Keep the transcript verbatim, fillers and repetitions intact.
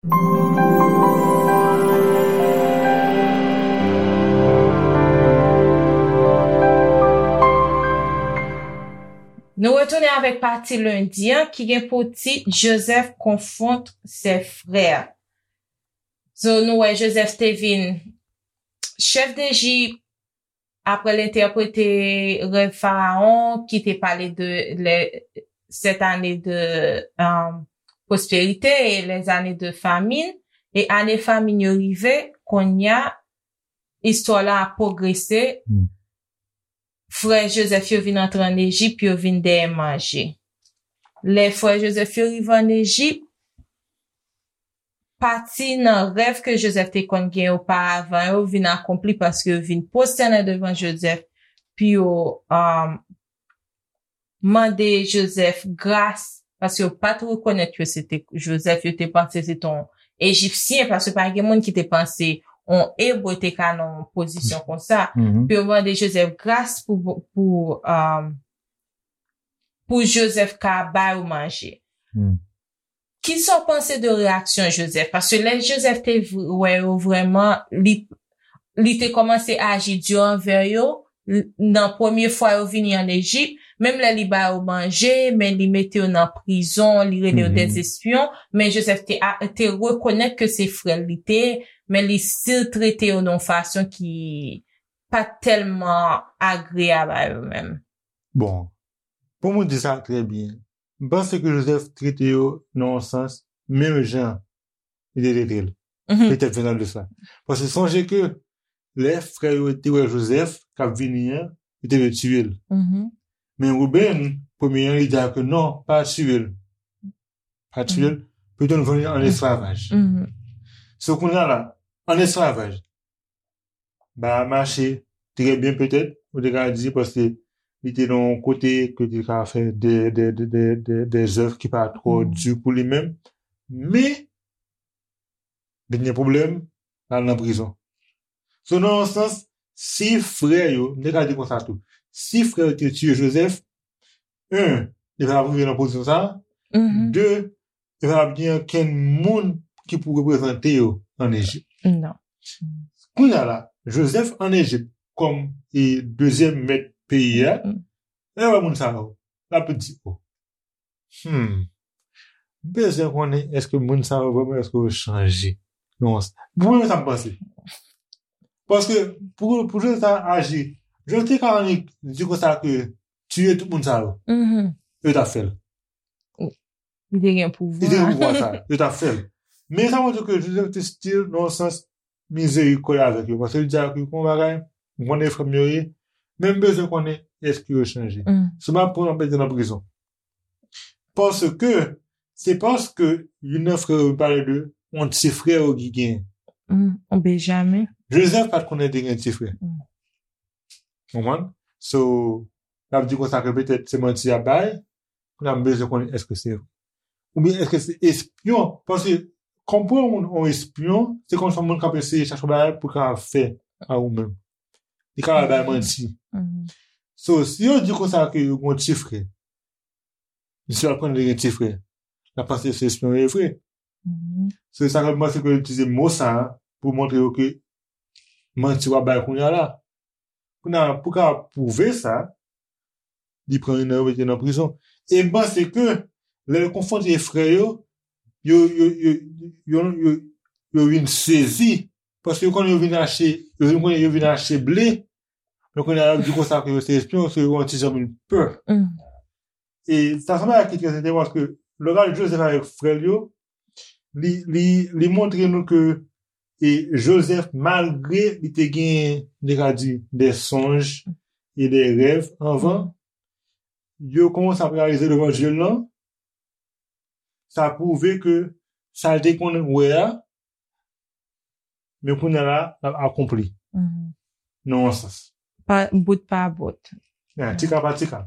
Nou retounen avèk pati lendi an ki gen pou tit Joseph confronte ses frères. So, nou wè Joseph te vin chèf Dejip apre l entèprete rèv Farawon ki te pale de les sept années de euh, prospérité et les années de famine. E ane famin yo rive, kounye a, istwa la ap pwogrese. Frè Joseph yo vin antre an Ejip, yo vin dèyè manje. Lè frè Joseph yo rive an Ejip, pati nan rèv ke Joseph te konn gen oparavan yo vin akonpli paske yo vin pwostène devan Joseph pou yo um, mande Joseph gras paske yo pa t rekonèt yo se te Joseph, yo te panse se te yon Ejipsyen paske pa gen moun ki te panse yon Ebre te ka nan yon pozisyon konsa. Pou yo mande Joseph gras pou, pou, um, pou Joseph ka ba yo manje. Kisa w panse de reyaksyon Joseph? Paske lè Joseph te wè yo vrèman, li, li te kòmanse aji di anvè yo. Nan premye fwa yo vini an Ejip, menm lè li ba yo manje, men li mete yo nan prizon, li rele yo des espions, men Joseph te, te rekonèt ke se frè l li te ye, men li still trete yo nan yon fason ki pa tèlman agreyab a yo menm. Bon, pou mwen di sa trè byen, m panse ke Joseph trete yo nan yon sans menm jan li te trete l. Petèt ven nan de sa. Paske sonje ke lè frè yo te wè Joseph k ap vini an, yo te vle tiye l. Men Ruben, premye an, li di a ke non, pa tiye l. Pa tiye l, pito n vann li an esklavaj. So kounye a la, an esklavaj, ba a mache trè byen petèt, ou te ka di, paske li te nan yon kote ke te ka fè de, de, de, de, de, de zèv ki pa twò di pou li menm. Men, vin gen pwoblèm, l al nan prizon. So, nan yon sans, si frè yo, m te ka di konsa tou, si frè yo te tiye Joseph, en, li pa t ap rive nan pozisyon sa a, de, e pa t ap gen okenn moun ki pou reprezante yo an Ejip. Non. Kounye a la, Joseph an Ejip kòm e dezyèm mèt peyi a, lè l wè moun sa yo, l ap di, oh, hmm, m bezwen konnen èske moun sa yo vrèman èske yo chanje. Non, pou mwen, sa m panse. Paske pou, pou Joseph ta aji, Joseph te ka annik di konsa ke tiye tout moun sa yo. Yo t ap fè l. Li te gen pouvwa. Li te gen pouvwa sa. Yo t ap fè l. Men sa montre ke Joseph te still nan yon sans mizerikòd avèk yo. Paske li di a ke yon bagay, m konnen frè m yo ye, men m bezwen konnen èske yo chanje. Si m ap pran, m ap mete nan prizon. Paske, se paske youn nan frè yo pale de yon ti frè yo ki gen. Yon Benjamen. Joseph pa t konnen te gen ti frè. Konprann? So, l ap di konsa ke petèt se manti y ap bay, kounye a m bezwen konnen èske se vre. Oubyen èske se espyon? Paske, konprann yon moun, yon espyon, se kòm si yon moun k ap eseye chache yon bagay pou l kapab fè a ou menm. Li kapab bay manti. So, si yo di konsa ke yo gen yon ti frè, misye ap konnen li gen ti frè, l ap panse se espyon yo ye vre. Se sa fè m panse ke yo itilize mo sa a pou montre yo ke manti w ap bay kounye a la. Kounye a, pou ka pwouve sa, li pran youn nan yo mete nan prizon. E m panse ke lè l konfwonte frè yo, yo, yo, yo, yo, yo, yo vin sezi. Paske yo konnen yo vin achte, yo vin konnen yo vin achte ble. Men kounye a, y ap di konsa ke yo se espyon, so yo yon ti jan vin pè. E sa se yon bagay ki trè enteresan paske lè w gade Joseph avèk frè l yo, li, li, li montre nou ke e Joseph, malgre li te gen, nou te ka di, de sonj e de rèv anvan, yo kòmanse ap reyalize levanjil lan, sa pwouve ke sa l te konn wè a, men kounye a la, l ap akonpli. Nan yon sans. Pa, bout pa bout. Ya, ti ka pa ti ka.